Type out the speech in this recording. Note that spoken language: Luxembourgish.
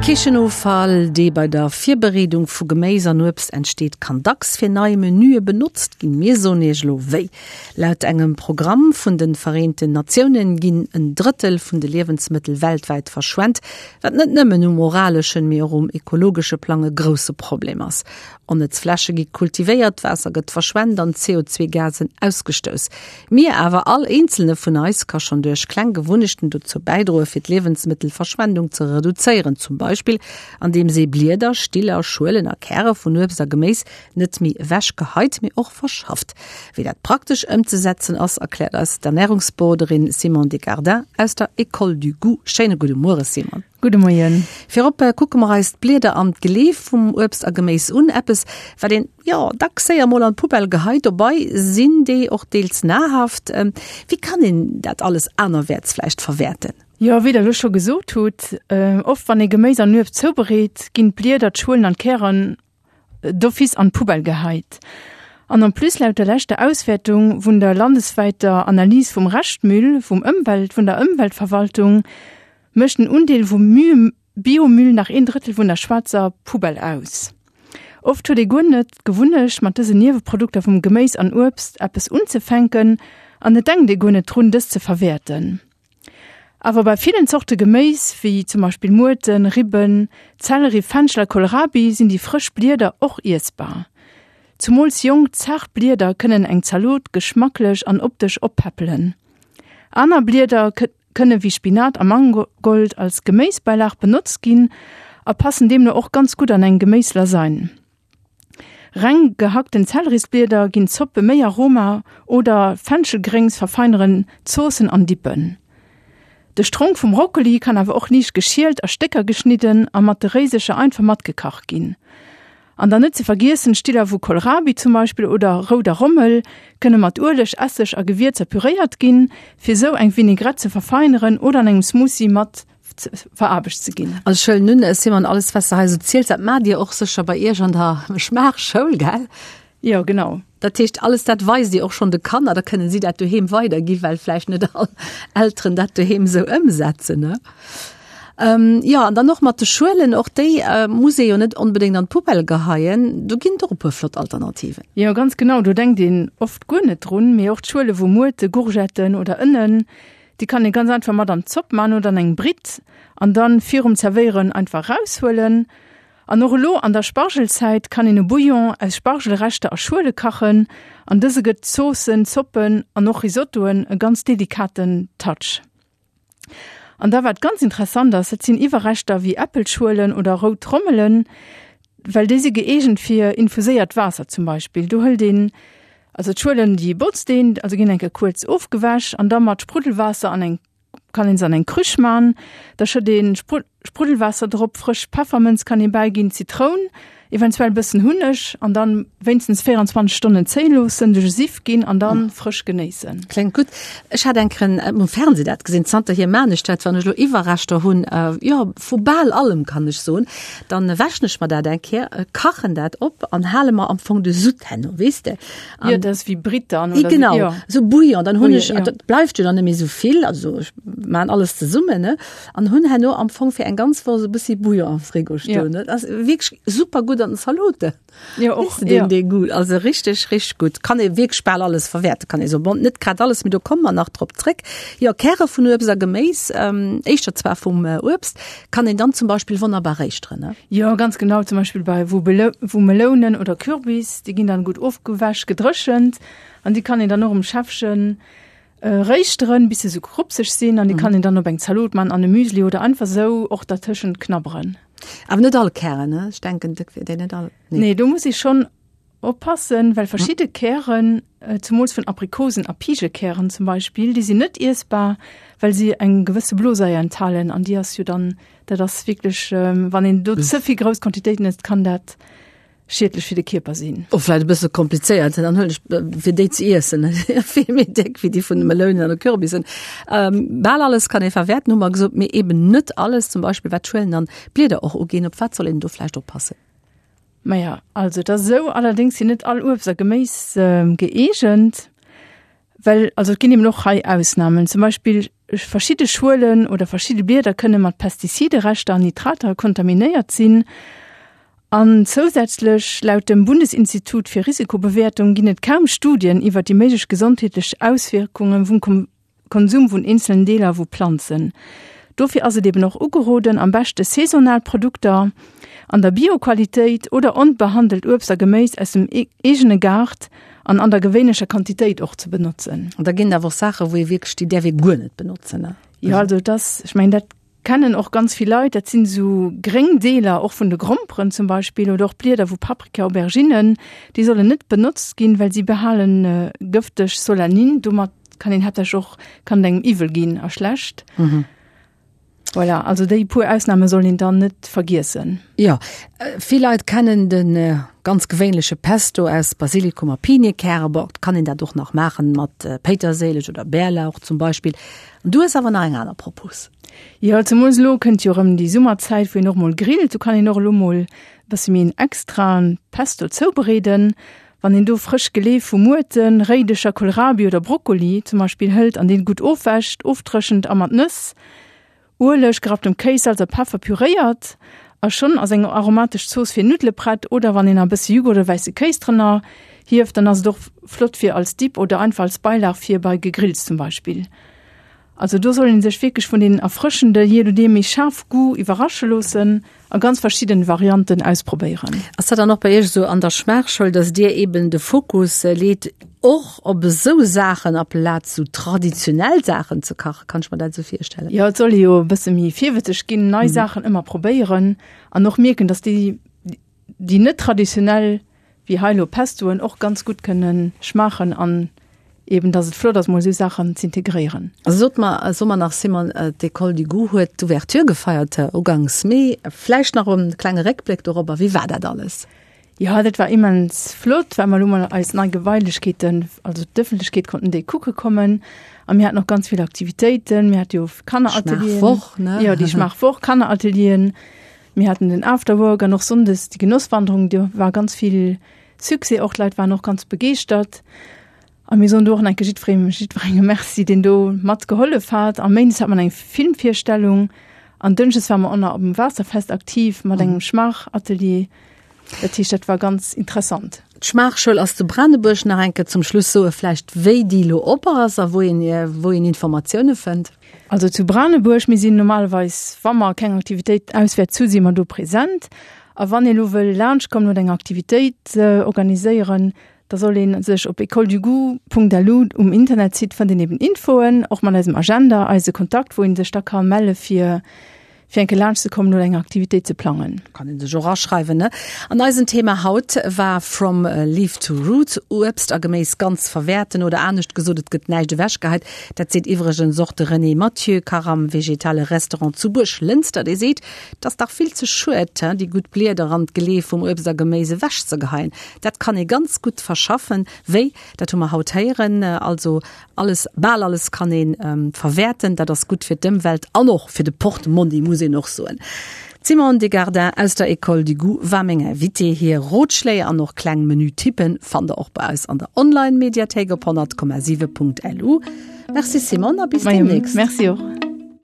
Kichenoffall, dee bei der Virbereedung vu Geméis an Uebst entsteet, kann dacks fir nei Menüe benotzt ginn. Mir soen Iech elo wéi. Laut engem Programm vun de Vereenten Natiounen ginn en Drëttel vun de Liewensmëttel weltwäit verschwent, wat net nëmmen um moraleschen, mee och um ekologesche Plang e grousse Problem ass. Onnëtz Fläche gi kultivéiert, d'Waasser gëtt verschwent an CO2-Gasen ausgestouss. Mir awer, all eenzelne vun eis, ka schonn duerch kleng Gewunnechten dozou bäidroe fir d'Liewensmëttelverschwendung ze reduzéieren, zum Beispill andeems ee Blieder, Stiller, Schuelen a Käre vun Uebst a Geméis net méi ewech geheit, mee och verschafft. Wéi dat praktesch ëmzesetzen ass, erkläert eis d'Ernärungsberoderin Simone Desgardins aus der École du Goût. Schéine gudde Muere Simone. Gudde Moien. Virop kucke mer eis d'Blieder an d'Geleef vum Uebst a Geméis un. Eppes, wat een, jo, dacks séier mol an d'Poubelle geheit. Dobei sinn déi och deels nahrhaft. Wéi kann een dat alles anerwäerts vläicht verwäerten? Jo, wéi der elo scho gesot hutt, oft wann ee Geméis an Uebst zoubereet, ginn d'Blieder, d'Schuelen an d'Kären d'office an d'Poubelle geheit. An en plus, laut der leschter Auswäertung vun der landeswäiter Analys vum Reschtmüll vum Ëmwelt vun der Ëmweltverwaltung, mécht den Undeel vum Biomüll nach een Drëttel vun der schwaarzer Poubelle aus. Oft huet ee guer net d'Gewunnecht, mat dësen Nieweprodukter vum Geméis an Uebst eppes unzefänken an et denkt ee guer net drun, dës ze verwäerten. Awer bei villen Zorte Geméis, wéi zum Beispill Muerten, Ribben, Zelleri, Fenchel a Kohlrabi sinn déi frësch Blieder och iessbar. Zumools jonk, zaart Blieder kënnen eng Zalot geschmacklech an optesch oppäppelen. Aner Blieder kënne wéi Spinat a Mangold als Geméisbäilag benotzt ginn a passen deemno och ganz gutt an eng Geméislasagne. Reng gehackten Zellerisblieder ginn Zoppe méi Aroma oder Fenchelgréngs verfeineren Zoossen an Dippen. De Stronk vum Brokkoli kann awer och liicht geschielt, a Stécker geschnidden a mat de Réisecher einfach matgekacht ginn. An dann net ze vergiessen, Stiller vu Kohlrabi zum Beispill oder rouder Rommel kënne mat Ueleg, Esseg a Gewierzer püréiert ginn, fir sou eng Vinaigrette ze verfeineren oder an engem Smoothie mat veraarbecht ze ginn. Also ech huelen un, Simone, alles wat s de hei esou ziels, dat maacht Dir och sécher bei Iech an der Schmaachschoul, gell? Jo, genau. Dat heescht, alles dat weist Dir och schonn de Kanner, da kënnen si dat doheem weiderginn, well vläicht net all Elteren dat doheem esou ëmsetzen, ne? Jo, an dann och mat de Schuelen, och déi muss ee jo net onbedéngt an d'Poubelle geheien. Do ginn et och e puer flott Alternativen. Jo, ganz genau, do denkt een oft guer net drun, mee och d'Schuele vu Muerte, Gourgetten oder Ënnen, Déi kann ee ganz einfach mat an d'Zopp man oder an eng Britt an dann virum Zerwéieren einfach raushuelen. An och elo an der Spargelzäit kann een e Bouillon aus Spargelreschter a Schuele kachen an dëse gëtt Zoossen, Zoppen an och Risottoen e ganz delikaten Touch. An da wat ganz interessant ass, dat sinn Iwwerreschter wéi Äppelschuelen oder rout Rommelen, well déi si gëeegent fir infuséiert Waasser zum Beispill. Do hëlt een Also d'Schuelen déi botzt een, also ginn eng Kéier kuerz ofgewäsch an da mat Spruddelwaasser an eng, kann een se an eng Krüch man. Da schëtt een Spruddelwaasser drop, frësch Peffermënz kann een bäiginn, Zitroun, eventuell bëssen Hunneg an dann wéinstens 24 Stonnen zéien loossen, duerch e Siff ginn an dann frësch genéissen. Kléngt gutt. Ech hat eng Kéier um Fernseh dat gesinn, zanterhier maan ech dat, wann ech elo Iwwerreschter hunn, jo vu bal allem kann ech soen, Dann wäschen ech mer dat eng Kéier, kachen dat op an hale mer am Fong de Sud herno, weess de. An, jo, dat ass wéi Britt dann, oder? Genau, jo. Sou Bouillon. Dann hunn ech, ja. dat bleift jo dann net méi sou vill, also ech maan alles zesummen, ne, an hunn herno am Fong fir eng ganz Woch sou e bëssi Bouillon am Frigo stoen, ne. Dat ass wierklech super gutt an den Zaloten. Jo, och, den, ja. Den Goût. Also richtig, richtig gut. Kann ee wierklech bal alles verwäerten, kann ee soen. Bon, net grad alles, mee do komme mer nach drop zréck. Jo, Käre vun Uebst a Geméis, ähm, éischter zwar vum äh, Uebst, kann een dann zum Beispill wonnerbar réischteren, ne? Jo, ganz genau. Zum Beispill bei vu, Belo vu Melounen oder Kürbis, déi ginn dann gutt ofgewäsch, gedréchent an déi kann een dann och um Schäffchen äh, réischteren, bis se sou krupseg sinn an déi kann een dann op eng Zalot man, an e Müsli oder einfach sou och dertëschent knabberen. Awer net all Kären, ne? Ech denken, dat wier déi net all. Nee. Nee, do muss ee schonn oppassen, well verschidde Kären, zemools vun Aprikosen a Pigekären zum Beispill, déi sinn net iessbar, well si eng gewësse Blosaier enthalen an déi ass jo dann, dat ass wierklech, wann een do ze vill grouss Quantitéiten ësst, kann dat schiedlech fir de Kierper sinn. Och vläit e bësse komplizéiert, dann huelen ech fir déi ze iessen vill méi déck wéi déi vun de Melounen an de Kürbissen. Ähm, bal alles kann ee verwäerten, hu mer gesot, mee eben net alles, zum Beispill wat d'Schuelen an d'Blieder och uginn. Op wat soll een do vläicht oppassen? Maja, also et ass esou, allerdéngs sinn net all Uebst a Geméis gëeegent, well also et ginn eben och hei Ausnamen. Zum Beispill. Verschidde Schuelen oder verschidde Blieder kënne mat Pestizidereschter an Nitrater kontaminéiert sinn. An zousätzlech, laut dem Bundesinstitut fir Risikobewäertung, ginn et kaum Studien iwwer déi méiglech gesondheetlech Auswierkunge vum Konsum vun eenzelen Deeler vu Planzen. Dofir ass et eben och ugeroden, am beschte saisonal Produkter an der Bio-Qualitéit oder onbehandelt Uebst a Geméis aus dem eegene Gaart an an der gewéinlecher Quantitéit och ze benotzen. An da ginn et awer och Saachen, wou ee wierklech, déi däerf ee guer net benotzen, ne? Jo, also et ass, ech mengen, dat kennen och ganz vill Leit, dat sinn esou gréng Deeler och vun de Gromperen zum Beispill oder och Blieder vu Paprika, Auberginnen, déi sollen net benotzt ginn, well si behalen gëfteg Solanin. Domat kann een haaptsächlech och, kann et engem iwwel ginn a schlecht. Voilà, also déi puer Ausnahme soll een dann net vergiessen. Jo, vill Leit kennen de ganz gewéinleche Pesto aus Basilikum a Pinienkäre. Bon, et kann een dat och nach maachen mat Péiterséileg oder Bärlauch zum Beispill. An du hues awer nach eng aner Propos. Jo, zemools elo kënnt jo erëm déi Summerzäit, wou een och mol grillt. Do kann een och elo mol e bësse méi en extraen Pesto zoubereeden. Wann een do frësch Geleef vu Muerten, Réidecher, Kohlrabi oder Brokkoli zum Beispill hëlt an deen gutt ofwäscht, ofdréchent a mat Nëss, Ueleg, gerapptem Kéis, Salz a Peffer püréiert a schonn ass eng aromatesch Zooss fir Nuddele prett. Oder wann een nach e bësse Jughurt oder wäisse Kéis drënner hieft, dann ass et och flott fir als Dip oder einfach als Beilag fir bei Gegrills zum Beispill. Also do soll een sech wierklech vun den erfrëschende, jee nodeem méi schaarf Goût iwwerrasche loossen a ganz verschidden Varianten ausprobéieren. Ass dat dann och bei Iech esou an der Schmaachschoul, dass Dir eben de Fokus leet och op esou Saachen aplaz esou traditionell Saachen ze kachen? Kann ech mer dat esou virstellen? Jo, et soll ee jo e bësse méi virwëtzeg ginn, nei Saachen ëmmer probéieren an och mierken, dass déi, déi net traditionell wéi hei elo Pestoen och ganz gutt kënne schmaachen an eben dass et flott ass mol esou Saachen z'integréieren. Sot mer, so mer nach Simone, d'École du Goût huet d'Ouverture gefeiert ugangs Mee. Vläicht nach e klenge Réckbléck dorobber, wéi war dat alles? Jo, dat war immens flott, well mer elo mol eis nei Gebailechkeeten, also d'Ëffentlechkeet konnten déi kucke kommen a mir haten och ganz vill Aktivitéiten. Mir hate jo Kanneratelieren. Schmaachwoch, ne? Jo, déi Schmaachwoch, Kanneratelieren. Mir haten den Afterwork an och sonndes déi Genosswanderung, do war ganz vill Succès och, d'Leit waren och ganz begeeschtert. A mir soen do och nach eng Kéier jiddweree, jiddwerengem Merci, deen do mat gehollef hat. A méindes hat mer eng Filmvirstellung an dënschdes ware mer och nach op dem Waasserfest aktiv mat engem Schmaachatelier. Dat heescht, dat war ganz interessant. D'Schmaachschoul ass zu Branebuerg. Nach eng Kéier zum Schluss soe vläicht, wéi déi elo op ass a wou een, wou een Informatioune fënnt. Also zu Branebuerg, mir sinn normalerweis, wa mer keng Aktivitéit auswäerts hu, si mer do present. A wann ee lo wëll laanschtkommen oder eng Aktivitéit organiséieren, da soll ee sech op écoledugoût.lu um Internetsite fënnt een eben Infoen, och mat eisem Agenda, eise Kontakt, wou ee sech da ka melle fir fir eng Kéier laanscht ze kommen oder eng Aktivitéit ze plangen. Kann een sech och aschreiwen, ne? An eisen Thema haut war From Leaf to Root, Uebst a Geméis ganz verwäerten oder anescht gesot, et gëtt näischt ewechgeheit. Dat seet iwwregens och de René Mathieu, Kach am vegetale Restaurant zu Buerglënster. Dee seet, Et ass dach vill ze schued, déi gutt Blieder an d'Geleef vum Uebst a Geméis ewechzegeheien. Dat kann ee ganz gutt verschaffen. Wéi? Dat hu mer haut héieren. Also Alles, bal alles kann een verwäerten. Dat ass gutt fir d'Ëmwelt an och fir de Portmonni, muss een och soen. D'Simone Degardin aus der École du Goût war meng Invitée. Hir Rotschléi an och kleng Menü-Tippen fannt der och bei eis an der Online-Mediathéik op 100,7.lu. Merci Simone a bis demnächst. Merci och.